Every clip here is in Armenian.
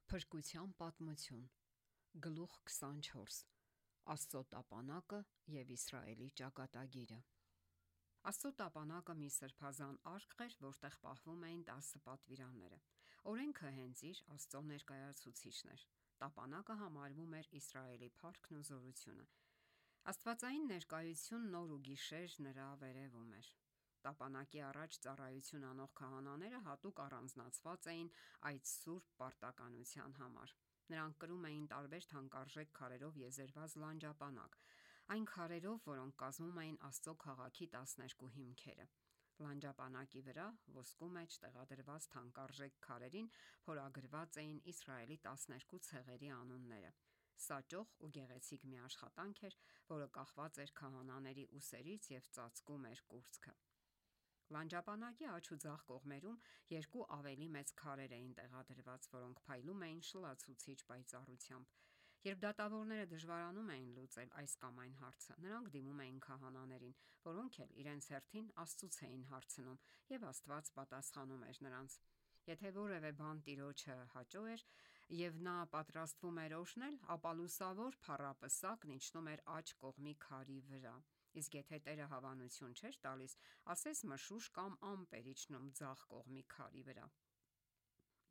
Փրկության պատմություն, գլուխ 24. Աստծո տապանակը և Իսրայելի ճակատագիրը։ Աստծո տապանակը մի սրբազան արք էր, որտեղ պահվում էին 10 պատվիրանները։ Օրենքը հենց իր Աստծո ներկայացուցիչն էր։ Տապանակը համարվում էր Իսրայելի փառքն ու զորությունը։ Աստվածային ներկայությունն օր ու գիշեր նրա վերևում էր։ Տապանակի առաջ ծառայություն անող քահանաները հատուկ առանձնացված էին այդ սուրբ պարտականության համար։ Նրանք կրում էին տարբեր թանկարժեք քարերով եզերված լանջապանակ, այն քարերով, որոնք կազմում էին Աստծո քաղաքի 12 հիմքերը։ Լանջապանակի վրա ոսկու մեջ տեղադրված թանկարժեք քարերին փորագրված էին Իսրայելի 12 ցեղերի անունները։ Սա ճոխ ու գեղեցիկ մի աշխատանք էր, որը կախված էր քահանաների ուսերից և ծածկում էր կուրծքը։ Լանջապանակի աջ ու ձախ կողմերում երկու ավելի մեծ քարեր էին տեղադրված, որոնք փայլում էին շլացուցիչ պայծառությամբ։ Երբ դատավորները դժվարանում էին լուծել այս կամ այն հարցը, նրանք դիմում էին քահանաներին, որոնք էլ իրենց հերթին Աստծուց էին հարցնում, եւ Աստված պատասխանում էր նրանց։ Եթե որևէ բան Տիրոջը հաճո էր եւ նա պատրաստվում էր օրհնել, ապա լուսավոր փառապսակն իջնում էր աջ կողմի քարի վրա։ Իսկ եթե Տերը հավանություն չէր տալիս, ասես մշուշ կամ ամպ էր իջնում ձախ կողմի քարի վրա։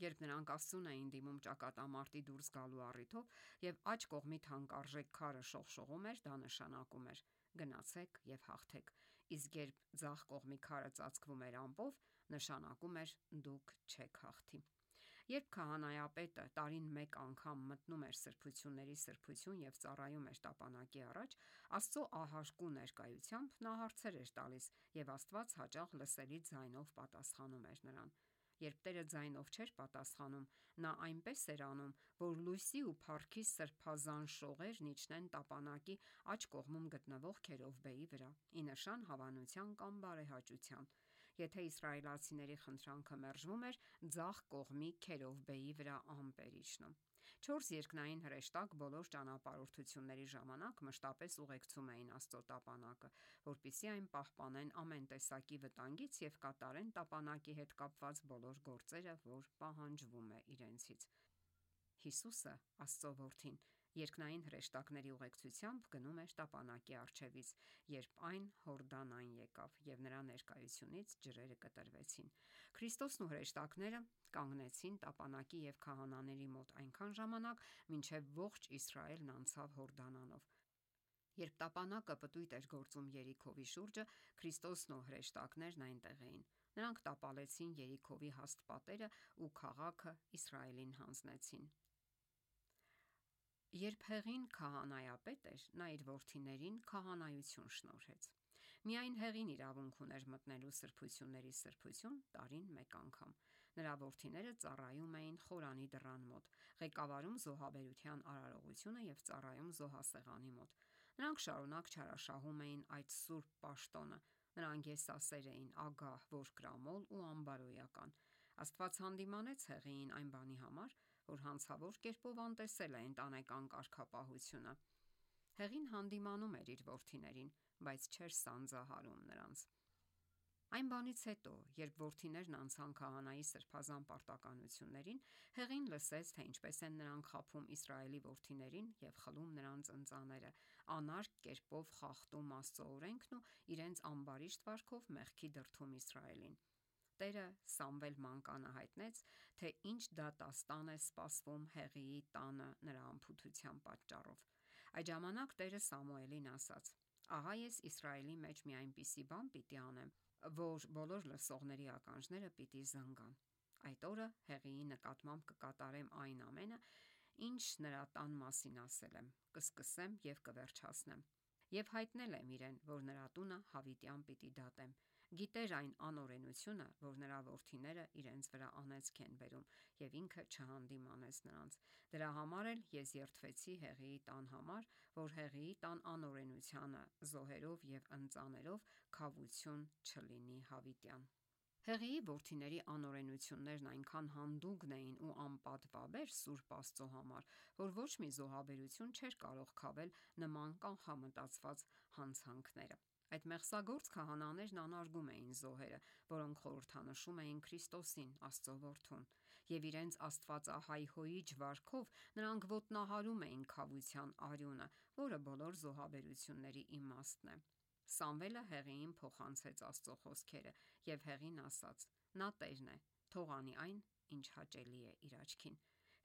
Երբ նրանք Աստծուն էին դիմում ճակատամարտի դուրս գալու առիթով եւ աջ կողմի թանկարժեք քարը շողշողում էր, դա նշանակում էր. գնացեք եւ հաղթեք։ Իսկ երբ ձախ կողմի քարը ծածկվում էր ամպով, նշանակում էր դուք չեք հաղթի։ Երբ քահանայապետը տարին մեկ անգամ մտնում էր սրբությունների սրբություն եւ ծառայում էր տապանակի առաջ, Աստծո ահարկու ներկայությամբ նա հարցեր էր տալիս, եւ Աստված հաճախ լսելի ձայնով պատասխանում էր նրան։ Երբ Տերը ձայնով չէր պատասխանում, նա այնպես էր անում, որ լույսի ու փառքի սրբազան շողերն իջնեն տապանակի աջ կողմում գտնվող քերովբեի վրա՝ ի նշան հավանության կամ բարեհաճության։ Եթե իսրայելացիների խնդրանքը մերժվում էր, ձախ կողմի քերովբեի վրա ամպ էր իջնում։ 4 երկնային հրեշտակ բոլոր ճանապարհորդությունների ժամանակ մշտապես ուղեկցում էին Աստծո տապանակը, որպեսզի այն պահպանեն ամեն տեսակի վտանգից եւ կատարեն տապանակի հետ կապված բոլոր գործերը, որ պահանջվում է իրենցից։ Հիսուսը, Աստծո որդին, երկնային հրեշտակների ուղեկցությամբ գնում էր տապանակի առջևից, երբ այն Հորդանան եկավ, եւ նրա ներկայությունից ջրերը կտրվեցին։ Քրիստոսն ու հրեշտակները կանգնեցին տապանակի եւ քահանաների մոտ այնքան ժամանակ, մինչեւ ողջ Իսրայելն անցավ Հորդանանով։ Երբ տապանակը պտույտ էր գործում Երիքովի շուրջը, Քրիստոսն ու հրեշտակներն այնտեղ էին։ Նրանք տապալեցին Երիքովի հաստ պատերը ու քաղաքը Իսրայելին հանձնեցին։ Երբ Հեղին քահանայապետ էր, նա իր որդիներին քահանայություն շնորհեց։ Միայն Հեղին իրավունք ուներ մտնելու սրբությունների սրբություն տարին մեկ անգամ։ Նրա որդիները ծառայում էին խորանի դռան մոտ, ղեկավարում զոհաբերության արարողությունը եւ ծառայում զոհասեղանի մոտ։ Նրանք շարունակ չարաշահում էին այդ սուրբ պաշտոնը։ Նրանք եսասեր էին, ագահ, ողկրամոլ ու անբարոյական։ Աստված հանդիմանեց Հեղիին այն բանի համար, որ հանցավոր կերպով անտեսել է ընտանեկան կարգապահությունը։ Հեղին հանդիմանում էր իր որդիներին, բայց չէր սանձահարում նրանց։ Այն բանից հետո, երբ որդիներն անցան քահանայի սրբազան պարտականություններին, Հեղին լսեց, թե ինչպես են նրանք խաբում Իսրայելի որդիներին եւ խլում նրանց ընծաները, անարգ կերպով խախտում Աստծո օրենքն ու իրենց ամբարիշտ վարքով մեղքի դրդում Իսրայելին։ Տերը Սամվել մանկանը հայտնեց, թե ինչ դատաստան է սպասվում Հեղիի տանը նրա անփութության պատճառով։ Այդ ժամանակ Տերը Սամուելին ասաց. «Ահա ես Իսրայելի մեջ մի այնպիսի բան պիտի անեմ, որ բոլոր լսողների ականջները պիտի զնգան։ Այդ օրը Հեղիի նկատմամբ կկատարեմ այն ամենը, ինչ նրա տան մասին ասել եմ, կսկսեմ եւ կվերջացնեմ։ Եվ հայտնել եմ իրեն, որ նրա տունը հավիտյան պիտի դատեմ։ Գիտեր այն անօրենությունը, որ նրա որդիները իրենց վրա անեծք են բերում, եւ ինքը չհանդիմանեց նրանց։ Դրա համար էլ ես երդվեցի Հեղիի տան համար, որ Հեղիի տան անօրենությանը զոհերով եւ ընծաներով քավություն չլինի հավիտյան»։ Հեղիի որդիների անօրենություններն այնքան հանդուգն էին ու անպատվաբեր Սուրբ Աստծո համար, որ ոչ մի զոհաբերություն չէր կարող քավել նման կանխամտածված հանցանքները։ Այդ մեղսագործ քահանաներն անարգում էին զոհերը, որոնք խորհրդանշում էին Քրիստոսին, Աստծո որդուն։ եւ իրենց աստվածահայհոյիչ վարքով նրանք ոտնահարում էին քավության արյունը, որը բոլոր զոհաբերությունների իմաստն է։ Սամվելը Հեղիին փոխանցեց Աստծո խոսքերը եւ Հեղին ասաց. «Նա Տերն է, թող անի այն, ինչ հաճելի է իր աչքին»։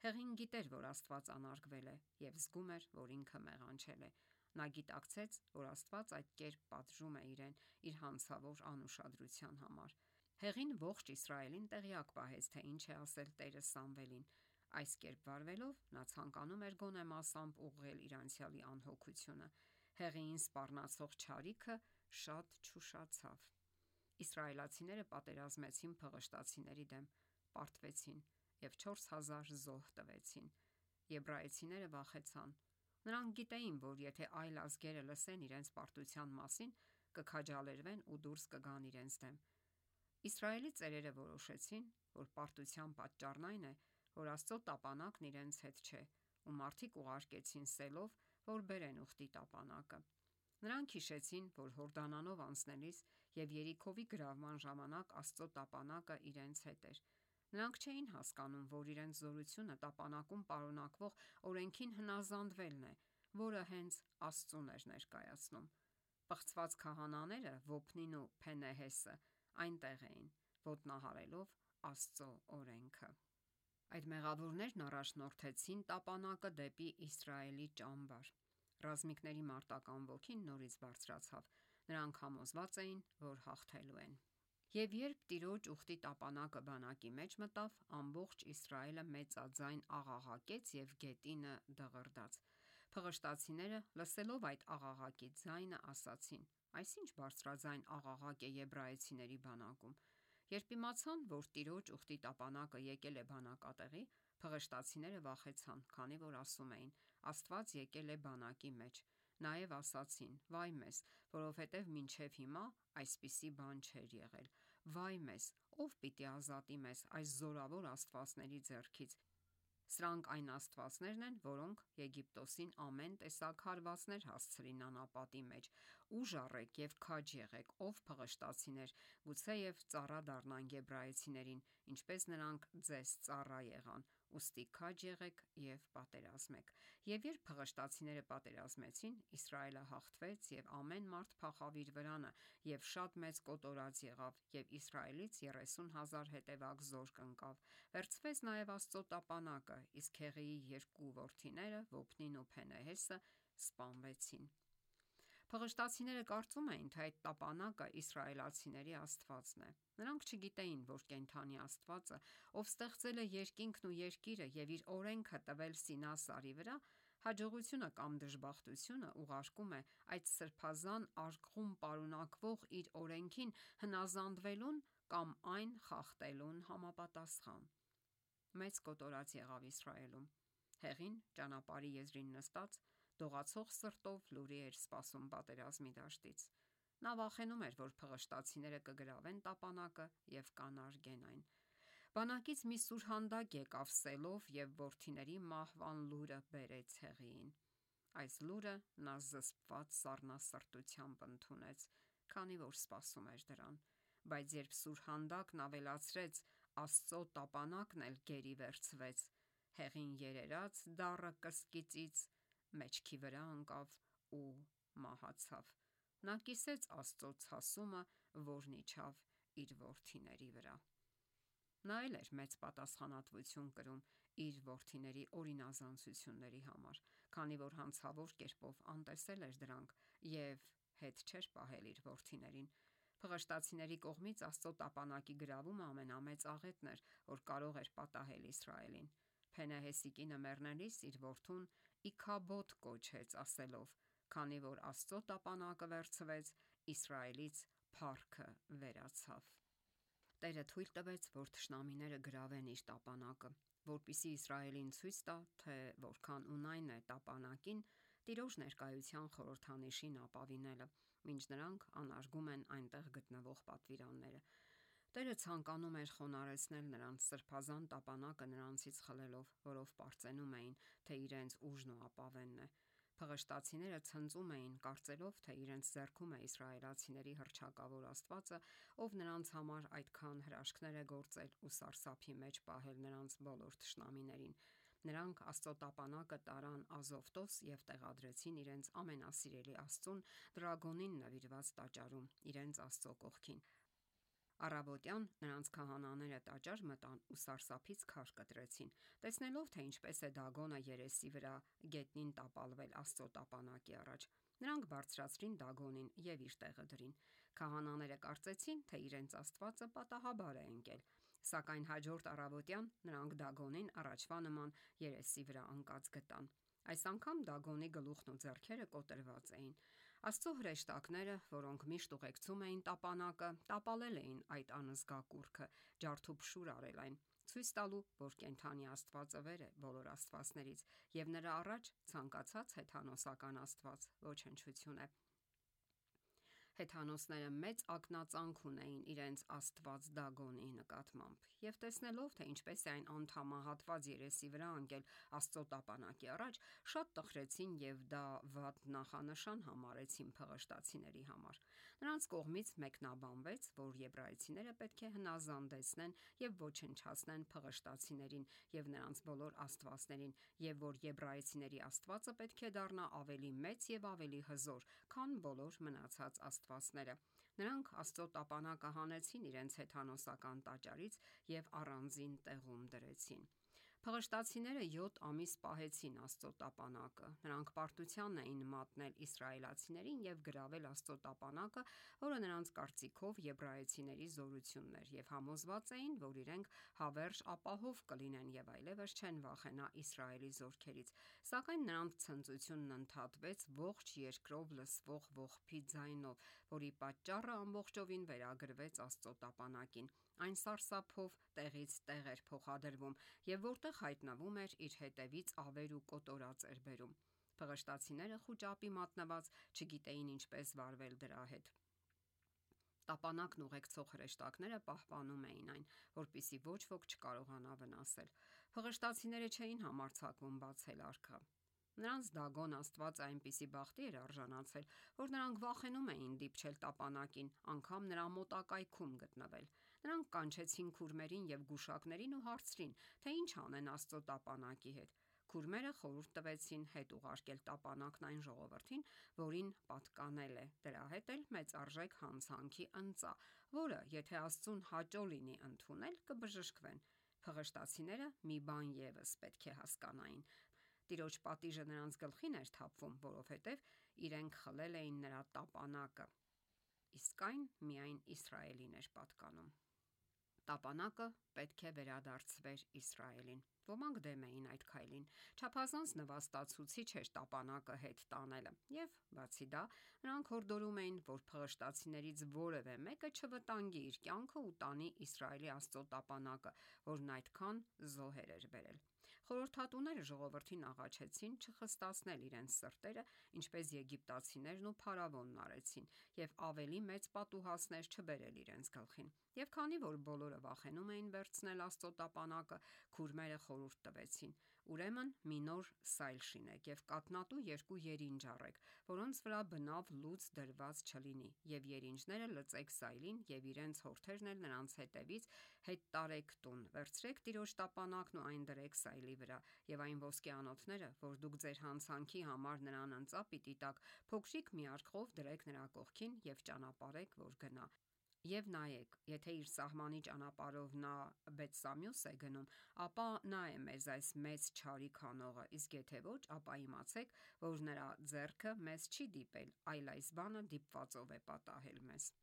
Հեղին գիտեր, որ Աստված անարգվել է եւ զգում էր, որ ինքը մեղանչել է։ Նա գիտակցեց, որ Աստված այդ կերպ պատժում է իրեն իր հանցավոր անուշադրության համար։ Հեղին ողջ Իսրայելին տեղյակ պահեց, թե ինչ է ասել Տերը Սամվելին։ Այս կերպ վարվելով նա ցանկանում էր գոնե մասամբ ուղղել իր անցյալի անհոգությունը։ Հեղիին սպառնացող չարիքը շատ չուշացավ։ Իսրայելացիները պատերազմեցին փղշտացիների դեմ, պարտվեցին եւ 4000 զոհ տվեցին։ Եբրայեցիները վախեցան։ Նրանք գիտեին, որ եթե այլ ազգերը լսեն իրենց պարտության մասին, կքաջալերվեն ու դուրս կգան իրենց դեմ։ Իսրայելի ծերերը որոշեցին, որ պարտության պատճառն այն է, որ Աստծո տապանակն իրենց հետ չէ, ու մարդիկ ուղարկեցին սելով, որ բերեն ուխտի տապանակը։ Նրանք հիշեցին, որ Հորդանանով անցնելիս եւ Երիքովի գրավման ժամանակ Աստծո տապանակը իրենց հետ էր։ Նրանք չէին հասկանում, որ իրենց զորությունը տապանակում պարունակվող օրենքին հնազանդվելն է, որը հենց Աստծուն էր ներկայացնում։ Պղծված քահանաները Ոփնին ու Փենեհեսը այնտեղ էին, ոտնահարելով Աստծո օրենքը։ Այդ մեղավորներն առաջնորդեցին տապանակը դեպի Իսրայելի ճամբար։ Ռազմիկների մարտական ոգին նորից բարձրացավ։ Նրանք համոզված էին, որ հաղթելու են։ Եվ երբ Տիրոջ ուխտի տապանակը բանակի մեջ մտավ, ամբողջ Իսրայելը մեծաձայն աղաղակեց եւ գետինը դղրդաց։ Փղշտացիները, լսելով այդ աղաղակի ձայնը, ասացին. «Այսինչ բարձրաձայն աղաղակ է եբրայեցիների բանակում»։ Երբ իմացան, որ Տիրոջ ուխտի տապանակը եկել է բանակատեղի, փղշտացիները վախեցան, քանի որ ասում էին. Աստված եկել է բանակի մեջ։ Նաև ասացին. «Վայ մեզ, որովհետև մինչև հիմա այսպիսի բան չէր եղել։ Վայ մեզ, ով պիտի ազատի մեզ այս զորավոր աստվածների ձեռքից։ Սրանք այն աստվածներն են, որոնք Եգիպտոսին ամեն տեսակ հարվածներ հասցրին անապատի մեջ։ Ուժ առեք եւ քաջ եղեք, ով փղշտացիներ, գուցեև ծառա դառնանք եբրայեցիներին, ինչպես նրանք ձեզ ծառա եղան։ Ուստի քաջ եղեք եւ պատերազմեք»։ Եվ երբ փղշտացիները պատերազմեցին, Իսրայելը հաղթվեց եւ ամեն մարդ փախավ իր վրանը եւ շատ մեծ կոտորած եղավ եւ Իսրայելից 30,000 հետևակ զորք ընկավ։ Վերցվեց նաեւ Աստծո տապանակը, իսկ Հեղիի երկու որդիները Ոփնին ու Փենեհեսը սպանվեցին։ Փղշտացիները կարծում էին, թե այդ տապանակը իսրայելացիների Աստվածն է։ Նրանք չգիտեին, որ կենդանի Աստվածը, ով ստեղծել է երկինքն ու երկիրը եւ իր օրենքը տվել Սինա սարի վրա, հաջողությունը կամ դժբախտությունը ուղարկում է այդ սրբազան արկղում պարունակվող իր օրենքին հնազանդվելուն կամ այն խախտելուն համապատասխան։ Մեծ կոտորած եղավ Իսրայելում։ Հեղին ճանապարհի եզրին նստած դողացող սրտով լուրի էր սպասում պատերազմի դաշտից։ Նա վախենում էր, որ փղշտացիները կգրավեն տապանակը եւ կանարգեն այն։ Բանակից մի սուրհանդակ եկավ սելով եւ որդիների մահվան լուրը բերեց Հեղիին։ Այս լուրը նա զսպված սառնասրտությամբ ընդունեց, քանի որ սպասում էր դրան։ Բայց երբ սուրհանդակն ավելացրեց, Աստծո տապանակն էլ գերի վերցվեց, Հեղին երերաց դառը կսկիծից մեջքի վրա ընկավ ու մահացավ։ Նա կիսեց Աստծո ցասումը, որն իջավ իր որդիների վրա։ Նա էլ էր մեծ պատասխանատվություն կրում իր որդիների օրինազանցությունների համար, քանի որ հանցավոր կերպով անտեսել էր դրանք եւ հետ չէր պահել իր որդիներին։ Փղշտացիների կողմից Աստծո տապանակի գրավումը ամենամեծ աղետն էր, որ կարող էր պատահել Իսրայելին։ Փենեհեսի կինը մեռնելիս իր որդուն Իքաբոդ կոչեց, ասելով. «Քանի որ Աստծո տապանակը վերցվեց, Իսրայելից փառքը վերացավ»։ Տերը թույլ տվեց, որ թշնամիները գրավեն իր տապանակը, որպեսզի Իսրայելին ցույց տա, թե որքան ունայն է տապանակին Տիրոջ ներկայության խորհրդանիշին ապավինելը, մինչ նրանք անարգում են այնտեղ գտնվող պատվիրանները։ Տերը ցանկանում էր խոնարհեցնել նրանց սրբազան տապանակը նրանցից խլելով, որով պարծենում էին, թե իրենց ուժն ու ապավենն է։ Փղշտացիները ցնծում էին, կարծելով, թե իրենց ձեռքում է իսրայելացիների հռչակավոր Աստվածը, ով նրանց համար այդքան հրաշքներ է գործել ու սարսափի մեջ պահել նրանց բոլոր թշնամիներին։ Նրանք Աստծո տապանակը տարան Ազովտոս եւ տեղադրեցին իրենց ամենասիրելի Աստծուն Դրագոնին նվիրված տաճարում, իրենց Աստծո կողքին։ Առավոտյան նրանց քահանաները տաճար մտան ու սարսափից քար կտրեցին, տեսնելով, թե ինչպես է Դագոնը երեսի վրա գետնին տապալվել Աստծո տապանակի առաջ։ Նրանք բարձրացրին Դագոնին եւ իր տեղը դրին։ Քահանաները կարծեցին, թե իրենց Աստվածը պատահաբար է ընկել, սակայն հաջորդ առավոտյան նրանք Դագոնին առաջվա նման երեսի վրա ընկած գտան։ Այս անգամ Դագոնի գլուխն ու ձեռքերը կոտրված էին։ Աստծո հրեշտակները, որոնք միշտ ուղեկցում էին տապանակը, տապալել էին այդ անզգա կուռքը, ջարդուփշուր արել այն, ցույց տալու, որ կենդանի Աստվածը վեր է բոլոր աստվածներից, եւ նրա առաջ ցանկացած հեթանոսական աստված ոչնչություն է։ Հեթանոսները մեծ ակնածանք ունեին իրենց աստված Դագոնի նկատմամբ, եւ տեսնելով, թե ինչպես է այն անդամահատված երեսի վրա ընկել Աստծո տապանակի առաջ, շատ տխրեցին եւ դա վատ նախանշան համարեցին փղշտացիների համար։ Նրանց կողմից մեկնաբանվեց, որ եբրայեցիները պետք է հնազանդեցնեն եւ ոչնչացնեն փղշտացիներին եւ նրանց բոլոր աստվածներին, եւ որ եբրայեցիների Աստվածը պետք է դառնա ավելի մեծ եւ ավելի հզոր, քան բոլոր մնացած աստվածները։ Նրանք Աստծո տապանակը հանեցին իրենց հեթանոսական տաճարից եւ առանձին տեղում դրեցին։ Փղշտացիները 7 ամիս պահեցին Աստծո տապանակը։ Նրանք պարտության էին մատնել իսրայելացիներին եւ գրավել Աստծո տապանակը, որը նրանց կարծիքով եբրայեցիների զորությունն էր, եւ համոզված էին, որ իրենք հավերժ ապահով կլինեն եւ այլևս չեն վախենա Իսրայելի զորքերից։ Սակայն նրանց ցնծությունն ընդհատվեց ողջ երկրով լսվող ողբի ձայնով, որի պատճառը ամբողջովին վերագրվեց Աստծո տապանակին։ Այն սարսափով տեղից տեղ էր փոխադրվում եւ որտեղ հայտնվում էր, իր հետևից ավեր ու կոտորած էր բերում։ Փղշտացիները խուճապի մատնված չգիտեին ինչպես վարվել դրա հետ։ Տապանակն ուղեկցող հրեշտակները պահպանում էին այն, որպեսզի ոչ ոք չկարողանա վնասել։ Փղշտացիները չէին համարձակվում բացել արքա։ Նրանց Դագոն Աստված այնպիսի բախտի էր արժանացել, որ նրանք վախենում էին դիպչել տապանակին, անգամ նրա մոտակայքում գտնվել։ Նրանք կանչեցին քուրմերին եւ գուշակներին ու հարցրին, թե ինչ անեն Աստծո տապանակի հետ։ Քուրմերը խորհուրդ տվեցին հետ ուղարկել տապանակն այն ժողովրդին, որին պատկանել է, դրա հետ էլ մեծարժեք հանցանքի ընծա, որը, եթե Աստծուն հաճո լինի ընդունել, կբժշկվեն։ Փղշտացիները մի բան եւս պետք է հասկանային. Տիրոջ պատիժը նրանց գլխին էր թափվում, որովհետև իրենք խլել էին նրա տապանակը, իսկ այն միայն Իսրայելին էր պատկանում։ Տապանակը պետք է վերադարձվեր Իսրայելին։ Ոմանք դեմ էին այդ քայլին։ Չափազանց նվաստացուցիչ էր տապանակը հետ տանելը, եւ բացի դա, նրանք հորդորում էին, որ փղշտացիներից որևէ մեկը չվտանգի իր կյանքը ու տանի Իսրայելի Աստծո տապանակը, որն այդքան զոհեր էր բերել։ Խորհրդատուները ժողովրդին աղաչեցին չխստացնել իրենց սրտերը, ինչպես եգիպտացիներն ու փարավոնն արեցին, եւ ավելի մեծ պատուհասներ չբերել իրենց գլխին։ Եվ քանի որ բոլորը վախենում էին վերցնել Աստծո տապանակը, քուրմերը խորհուրդ տվեցին. ուրեմն մի նոր սայլ շինեք եւ կաթնատու 2 երինջ առեք, որոնց վրա բնավ լուծ դրված չլինի, եւ երինջները լծեք սայլին եւ իրենց հորթերն էլ նրանց հետևից հետ տարեք տուն, վերցրեք Տիրոջ տապանակն ու այն դրեք սայլի վրա, եւ այն ոսկեանոթները, որ դուք ձեր հանցանքի համար նրան ընծա պիտի տակ, փոքրիկ մի արկղով դրեք նրա կողքին եւ ճանապարհեք, որ գնա։ Եվ նայեք, եթե իր սահմանի ճանապարհով նա Բեթսամյուս է գնում, ապա նա է մեզ այս մեծ չարիք անողը, իսկ եթե ոչ, ապա իմացեք, որ նրա ձեռքը մեզ չի դիպել, այլ այս բանը դիպվածով է պատահել մեզ։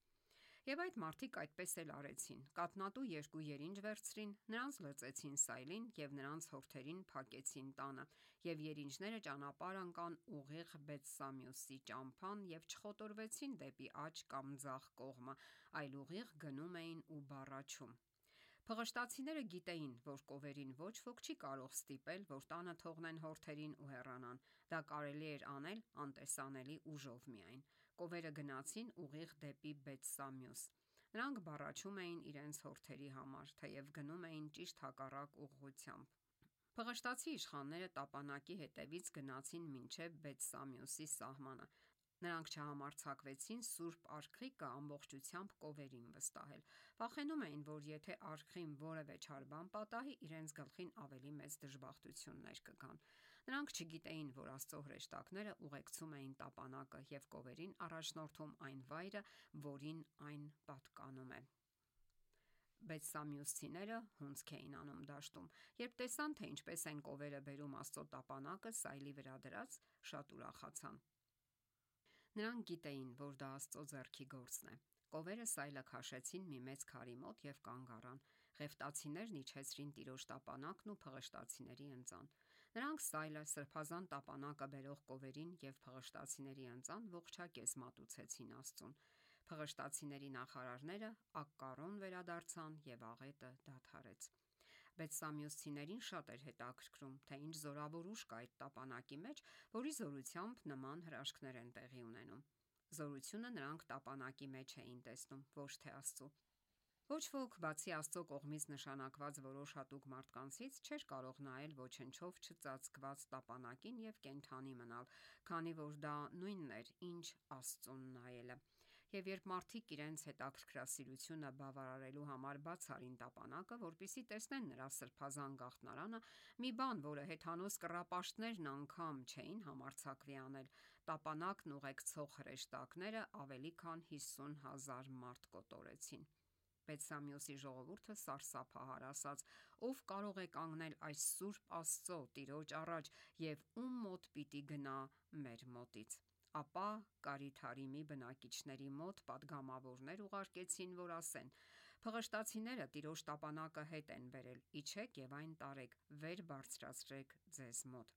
Եվ այդ մարդիկ այդպես էլ արեցին։ Կաթնատու 2 երինջ վերցրին, նրանց լծեցին սայլին եւ նրանց հորթերին փակեցին տանը, եւ երինջները ճանապարհ ընկան ուղիղ Բեթսամյուսի ճամփան եւ չխոտորվեցին դեպի աջ կամ ձախ կողմը, այլ ուղիղ գնում էին ու բառաչում։ Փղշտացիները գիտեին, որ կովերին ոչ ոք չի կարող ստիպել, որ տանը թողնեն հորթերին ու հեռանան։ Դա կարելի էր անել անտեսանելի ուժով միայն։ Կովերը գնացին ուղիղ դեպի Բեթսամյուս։ Նրանք բառաչում էին իրենց հորթերի համար, թեև գնում էին ճիշտ հակառակ ուղղությամբ։ Փղշտացի իշխանները տապանակի հետևից գնացին մինչև Բեթսամիոսի սահմանը։ Նրանք չհամարձակվեցին Սուրբ Արքղիկը ամբողջությամբ կովերին վստահել։ Վախենում էին, որ եթե արքղին որևէ չար բան պատահի, իրենց գլխին ավելի մեծ դժբախտություններ կգան։ Նրանք չգիտեին, որ Աստծո հրեշտակները ուղեկցում էին տապանակը եւ կովերին առաջնորդում այն վայրը, որին այն պատկանում է։ Բեթսամիոսցիները հունձք էին անում դաշտում։ Երբ տեսան, թե ինչպես են կովերը բերում Աստծո տապանակը սայլի վրա դրած, շատ ուրախացան։ Նրանք գիտեին, որ դա Աստծո ձեռքի գործն է։ Կովերը սայլը քաշեցին մի մեծ քարի մոտ եւ կանգ առան։ Ղևտացիներն իջեցրին տիրոջ տապանակն ու փղշտացիների ընծան։ Նրանք սայլը, սրբազան տապանակը բերող կովերին եւ փղշտացիների ընծան ողջակեզ մատուցեցին Աստծուն։ Փղշտացիների նախարարները ակկառոն վերադարձան եւ աղետը դադարեց։ Բեթսամիոսցիներին շատ էր հետաքրքրում, թե ինչ զորավոր ուժ կա այդ տապանակի մեջ, որի զորությամբ նման հրաշքներ են տեղի ունենում։ Զորությունը նրանք տապանակի մեջ էին տեսնում, ոչ թե Աստծո։ Ոչ ոք, բացի Աստծո կողմից նշանակված որոշ հատուկ մարդկանցից, չէր կարող նայել ոչնչով չծածկված տապանակին եւ կենդանի մնալ, քանի որ դա նույնն էր, ինչ Աստծուն նայելը։ Եվ երբ մարդիկ իրենց հետաքրքրասիրությունը բավարարելու համար բաց արին տապանակը, որպեսզի տեսնեն նրա սրբազան գաղտնարանը, մի բան, որը հեթանոս կռապաշտներն անգամ չէին համարձակվի անել, տապանակն ուղեկցող հրեշտակները ավելի քան 50,000 մարդ կոտորեցին։ Բեթսամիոսի ժողովուրդը սարսափահար ասաց. «Ով կարող է կանգնել այս սուրբ Աստծո Տիրոջ առաջ եւ ում մոտ պիտի գնա մեր մոտից»։ Ապա Կարիթարիմի բնակիչների մոտ պատգամավորներ ուղարկեցին, որ ասեն. «Փղշտացիները Տիրոջ տապանակը հետ են բերել, իջեք եւ այն տարեք, վեր բարձրացրեք ձեզ մոտ»։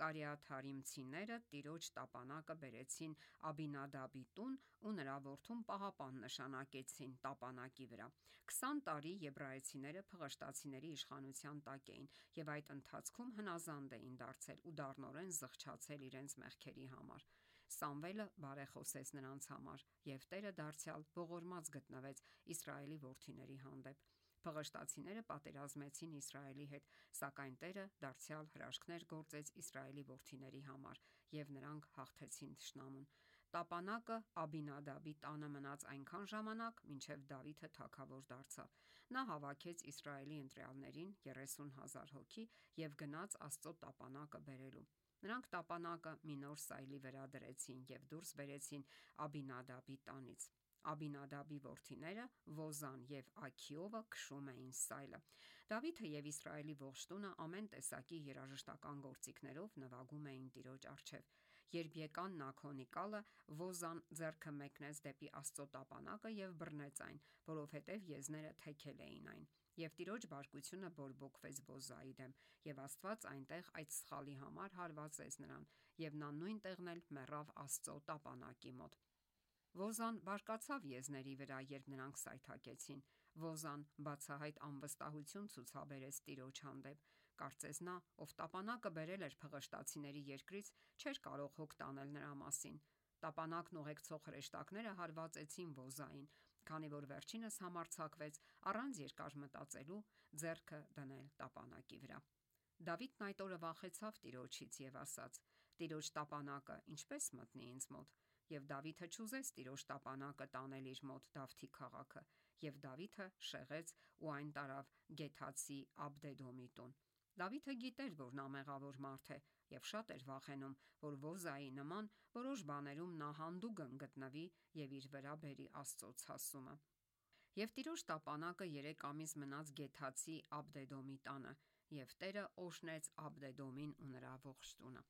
Կարիաթարիմցիները Տիրոջ տապանակը բերեցին Աբինադաբի տուն ու նրա որդուն պահապան նշանակեցին տապանակի վրա։ 20 տարի եբրայեցիները փղշտացիների իշխանության տակ էին եւ այդ ընթացքում հնազանդ էին դարձել ու դառնորեն զղջացել իրենց մեղքերի համար։ Սամվելը բարեխոսեց նրանց համար եւ Տերը դարձյալ ողորմած գտնվեց Իսրայելի որդիների հանդեպ։ Փղշտացիները պատերազմեցին Իսրայելի հետ, սակայն Տերը դարձյալ հրաշքներ գործեց Իսրայելի որդիների համար եւ նրանք հաղթեցին թշնամուն։ Տապանակը Աբինադաբի տանը մնաց այնքան ժամանակ, մինչև Դավիթը թագավոր դարձավ։ Նա հավաքեց Իսրայելի ընտրյալներին 30,000 հոգի եւ գնաց Աստծո տապանակը բերելու։ Նրանք տապանակը մի նոր սայլի վրա դրեցին եւ դուրս բերեցին Աբինադաբի տանից։ Աբինադաբի որդիները Ոզան եւ Աքիովը քշում էին սայլը։ Դավիթը եւ Իսրայելի ողջ տունը ամեն տեսակի երաժշտական գործիքներով նվագում էին Տիրոջ առջև։ Երբ եկան Նաքոնիկալը, Ոզան ձեռքը մեկնեց դեպի Աստծո տապանակը եւ բռնեց այն, որովհետեւ եզները թեքել էին այն։ Եվ Տիրոջ բարկությունը բորբոքվեց Ոզայի դեմ, եւ Աստված այնտեղ այդ սխալի համար հարվածեց նրան, եւ նա նույն տեղն էլ մեռավ Աստծո տապանակի մոտ։ Ոզան բարկացավ եզների վրա, երբ նրանք սայթաքեցին։ Ոզան բացահայտ անվստահություն ցուցաբերեց Տիրոջ հանդեպ։ Կարծես նա, ով տապանակը բերել էր փղշտացիների երկրից, չէր կարող հոգ տանել նրա մասին։ Տապանակն ուղեկցող հրեշտակները հարվածեցին Ոզային, քանի որ վերջինս համարձակվեց առանց երկար մտածելու ձեռքը դնել տապանակի վրա։ Դավիթն այդ օրը վախեցավ Տիրոջից եւ ասաց. «Տիրոջ տապանակը ինչպես մտնի ինձ մոտ»։ Եվ Դավիթը չուզեց Տիրոջ տապանակը տանել իր մոտ Դավթի քաղաքը, եւ Դավիթը շեղեց ու այն տարավ Գեթացի Աբդեդոմի տուն։ Դավիթը գիտեր, որ նա մեղավոր մարդ է եւ շատ էր վախենում, որ Ոզայի նման որոշ բաներում նա հանդուգն գտնվի եւ իր վրա բերի Աստծո ցասումը։ Եվ Տիրոջ տապանակը 3 ամիս մնաց Գեթացի Աբդեդոմի տանը, եւ Տերը օրհնեց Աբդեդոմին ու նրա ողջ տունը։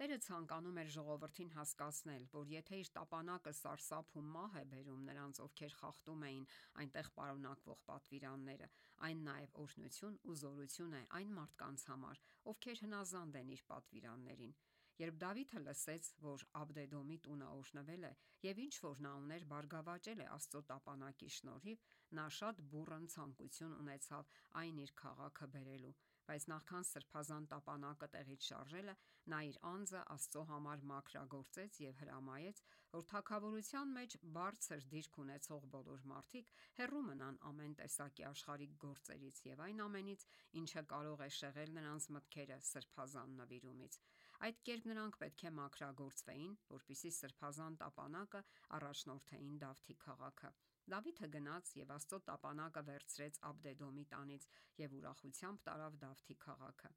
Տերը ցանկանում էր ժողովրդին հասկացնել, որ եթե իր տապանակը սարսափ ու մահ է բերում նրանց, ովքեր խախտում էին այնտեղ պարունակվող պատվիրանները, այն նաեւ օրհնություն ու զորություն է այն մարդկանց համար, ովքեր հնազանդ են իր պատվիրաններին։ Երբ Դավիթը լսեց, որ Աբդեդոմի տունը օրհնվել է եւ ինչ որ նա ուներ բարգավաճել է Աստծո տապանակի շնորհիվ, նա շատ բուռն ցանկություն ունեցավ այն իր քաղաքը բերելու, Բայց նախքան սրբազան տապանակը տեղից շարժելը, նա իր անձը Աստծո համար մաքրագործեց եւ հրամայեց, որ թագավորության մեջ բարձր դիրք ունեցող բոլոր մարդիկ հեռու մնան ամեն տեսակի աշխարհիկ գործերից եւ այն ամենից, ինչը կարող է շեղել նրանց մտքերը սրբազան նվիրումից։ Այդ կերպ նրանք պետք է մաքրագործվեին, որպեսզի սրբազան տապանակը առաջնորդեին Դավթի քաղաքը։ Դավիթը գնաց եւ Աստծո տապանակը վերցրեց Աբդեդոմի տանից եւ ուրախությամբ տարավ Դավթի քաղաքը։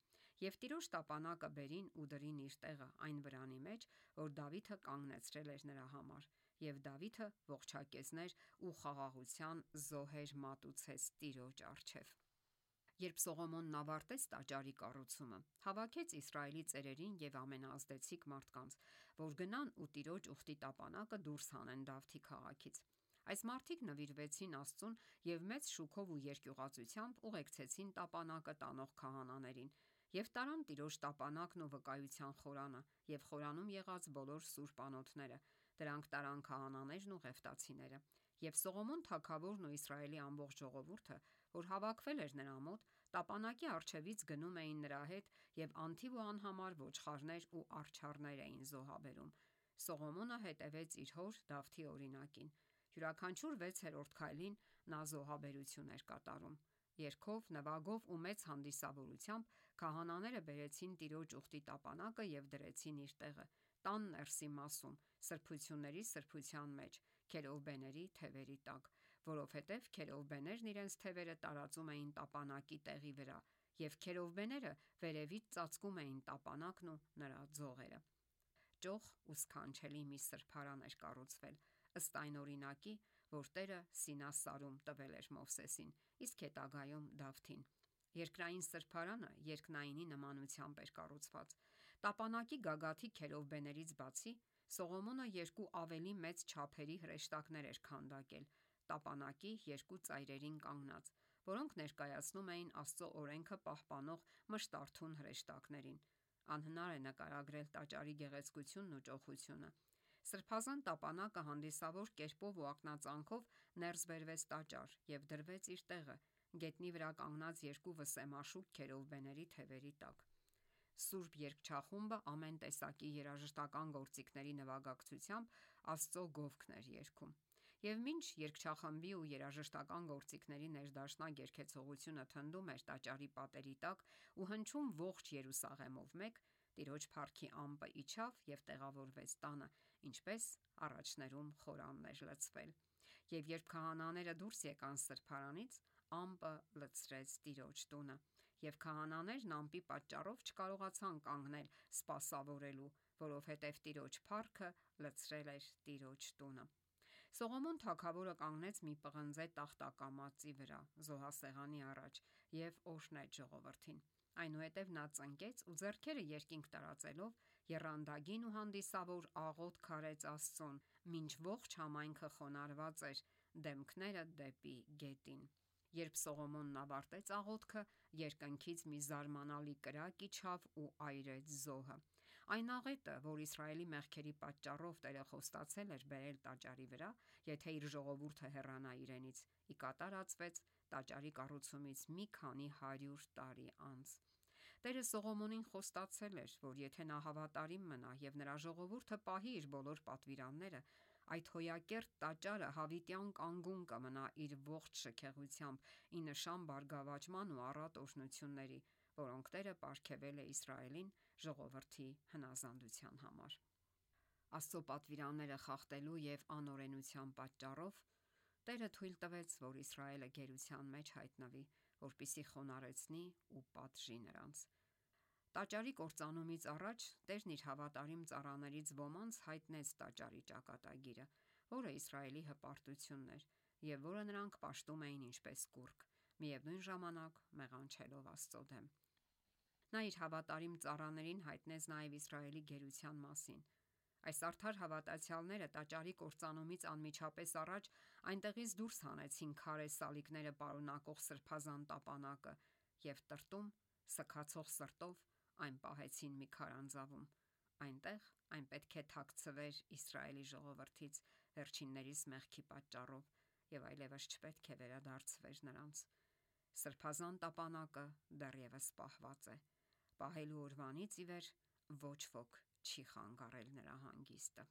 Եվ Տիրոջ տապանակը բերին ու դրին իր տեղը այն վրանի մեջ, որ Դավիթը կանգնեցրել էր նրա համար։ Եվ Դավիթը ողջակեզներ ու խաղաղության զոհեր մատուցեց Տիրոջ առջև։ Երբ Սողոմոնն ավարտեց տաճարի կառուցումը, հավաքեց Իսրայելի ծերերին եւ ամենաազդեցիկ մարդկանց, որ գնան ու Տիրոջ ուխտի տապանակը դուրս հանեն Դավթի քաղաքից։ Այս մարդիկ նվիրվեցին Աստծուն եւ մեծ շուքով ու երկյուղածությամբ ուղեկցեցին տապանակը տանող քահանաներին եւ տարան Տիրոջ տապանակն ու վկայության խորանը եւ խորանում եղած բոլոր սուրբ անոթները։ Դրանք տարան քահանաներն ու ղևտացիները։ Եվ Սողոմոն թագավորն ու Իսրայելի ամբողջ ժողովուրդը, որ հավաքվել էր նրա մոտ, տապանակի առջևից գնում էին նրա հետ եւ անթիվ ու անհամար ոչխարներ ու արջառներ էին զոհաբերում։ Սողոմոնը հետևեց իր հոր Դավթի օրինակին։ Յուրաքանչյուր 6-րդ քայլին նա զոհաբերություն էր կատարում։ Երգով, նվագով ու մեծ հանդիսավորությամբ քահանաները բերեցին Տիրոջ ուխտի տապանակը եւ դրեցին իր տեղը տան ներսի մասում, սրբությունների սրբության մեջ, քերովբեների թևերի տակ, որովհետև քերովբեներն իրենց թևերը տարածում էին տապանակի տեղի վրա, եւ քերովբեները վերևից ծածկում էին տապանակն ու նրա ձողերը։ Ճոխ ու սքանչելի մի սրբարան էր կառուցվել, ըստ այն օրինակի, որ Տերը Սինասարում տվել էր Մովսեսին, իսկ հետագայում Դավթին։ Երկրային սրբարանը երկնայինի նմանությամբ էր կառուցված։ Տապանակի գագաթի քերովբեներից բացի Սողոմոնը երկու ավելի մեծ չափերի հրեշտակներ էր քանդակել տապանակի երկու ծայրերին կանգնած, որոնք ներկայացնում էին Աստծո օրենքը պահպանող մշտարթուն հրեշտակներին։ Անհնար է նկարագրել տաճարի գեղեցկությունն ու ճոխությունը։ Սրբազան տապանակը հանդիսավոր կերպով ու ակնածանքով ներս բերվեց տաճար եւ դրվեց իր տեղը գետնի վրա կանգնած երկու վսեմաշուք քերովբեների թևերի տակ։ Սուրբ երգչախումբը ամեն տեսակի երաժշտական գործիքների նվագակցությամբ Աստծո գովքն էր երգում։ Եվ մինչ երգչախմբի ու երաժշտական գործիքների ներդաշնակ երգեցողությունը թնդում էր տաճարի պատերի տակ ու հնչում ողջ Երուսաղեմով մեկ, Տիրոջ փառքի ամպը իջավ եւ տեղավորվեց տանը, ինչպես առաջներում խորանն էր լցվել։ Եվ երբ քահանաները դուրս եկան սրբարանից, ամպը լցրեց Տիրոջ տունը, եւ քահանաներն ամպի պատճառով չկարողացան կանգնել սպասավորելու, որովհետեւ Տիրոջ փառքը լցրել էր Տիրոջ տունը։ Սողոմոն թագավորը կանգնեց մի պղնձե տախտակամածի վրա զոհասեղանի առաջ եւ օրհնեց ժողովրդին։ Այնուհետև նա ծնկեց ու ձեռքերը երկինք տարածելով եռանդագին ու հանդիսավոր աղոթք արեց Աստծուն, մինչ ողջ համայնքը խոնարհված էր դեմքները դեպի գետին։ Երբ Սողոմոնն ավարտեց աղոթքը, երկնքից մի զարմանալի կրակ իջավ ու այրեց զոհը։ Այն աղետը, որ Իսրայելի մեղքերի պատճառով Տերը խոստացել էր բերել տաճարի վրա, եթե իր ժողովուրդը հեռանա իրենից, ի կատար ածվեց տաճարի կառուցումից մի քանի 100 տարի անց։ Տերը Սողոմոնին խոստացել էր, որ եթե նա հավատարիմ մնա եւ նրա ժողովուրդը պահի իր բոլոր պատվիրանները, այդ հոյակերտ տաճարը հավիտյան կանգուն կմնա իր ողջ շքեղությամբ ի նշան բարգավաճման ու առատ օրհնությունների, որոնք Տերը պարգևել է Իսրայելին ժողովրդի հնազանդության համար։ Աստծո պատվիրանները խախտելու եւ անօրենության պատճառով Տերը թույլ տվեց, որ Իսրայելը գերության մեջ հայտնվի, որպեսզի խոնարհեցնի ու պատժի նրանց։ Տաճարի կործանումից առաջ Տերն իր հավատարիմ ծառաներից ոմանց հայտնեց տաճարի ճակատագիրը, որը Իսրայելի հպարտությունն էր եւ որը նրանք պաշտում էին ինչպես կուռք, միևնույն ժամանակ մեղանչելով Աստծո դեմ։ Նա իր հավատարիմ ծառաներին հայտնեց նաև Իսրայելի գերության մասին։ Այս արդար հավատացյալները տաճարի կործանումից անմիջապես առաջ այնտեղից դուրս հանեցին քարե սալիկները պարունակող սրբազան տապանակը եւ տրտում, սքացող սրտով այն պահեցին մի քարանձավում։ Այնտեղ այն պետք է թաքցվեր Իսրայելի ժողովրդից վերջիններիս մեղքի պատճառով եւ այլևս չպետք է վերադարձվեր նրանց։ Սրբազան տապանակը դեռևս պահված է։ Պահելու օրվանից ի վեր ոչ ոք չի խանգարել նրա հանգիստը։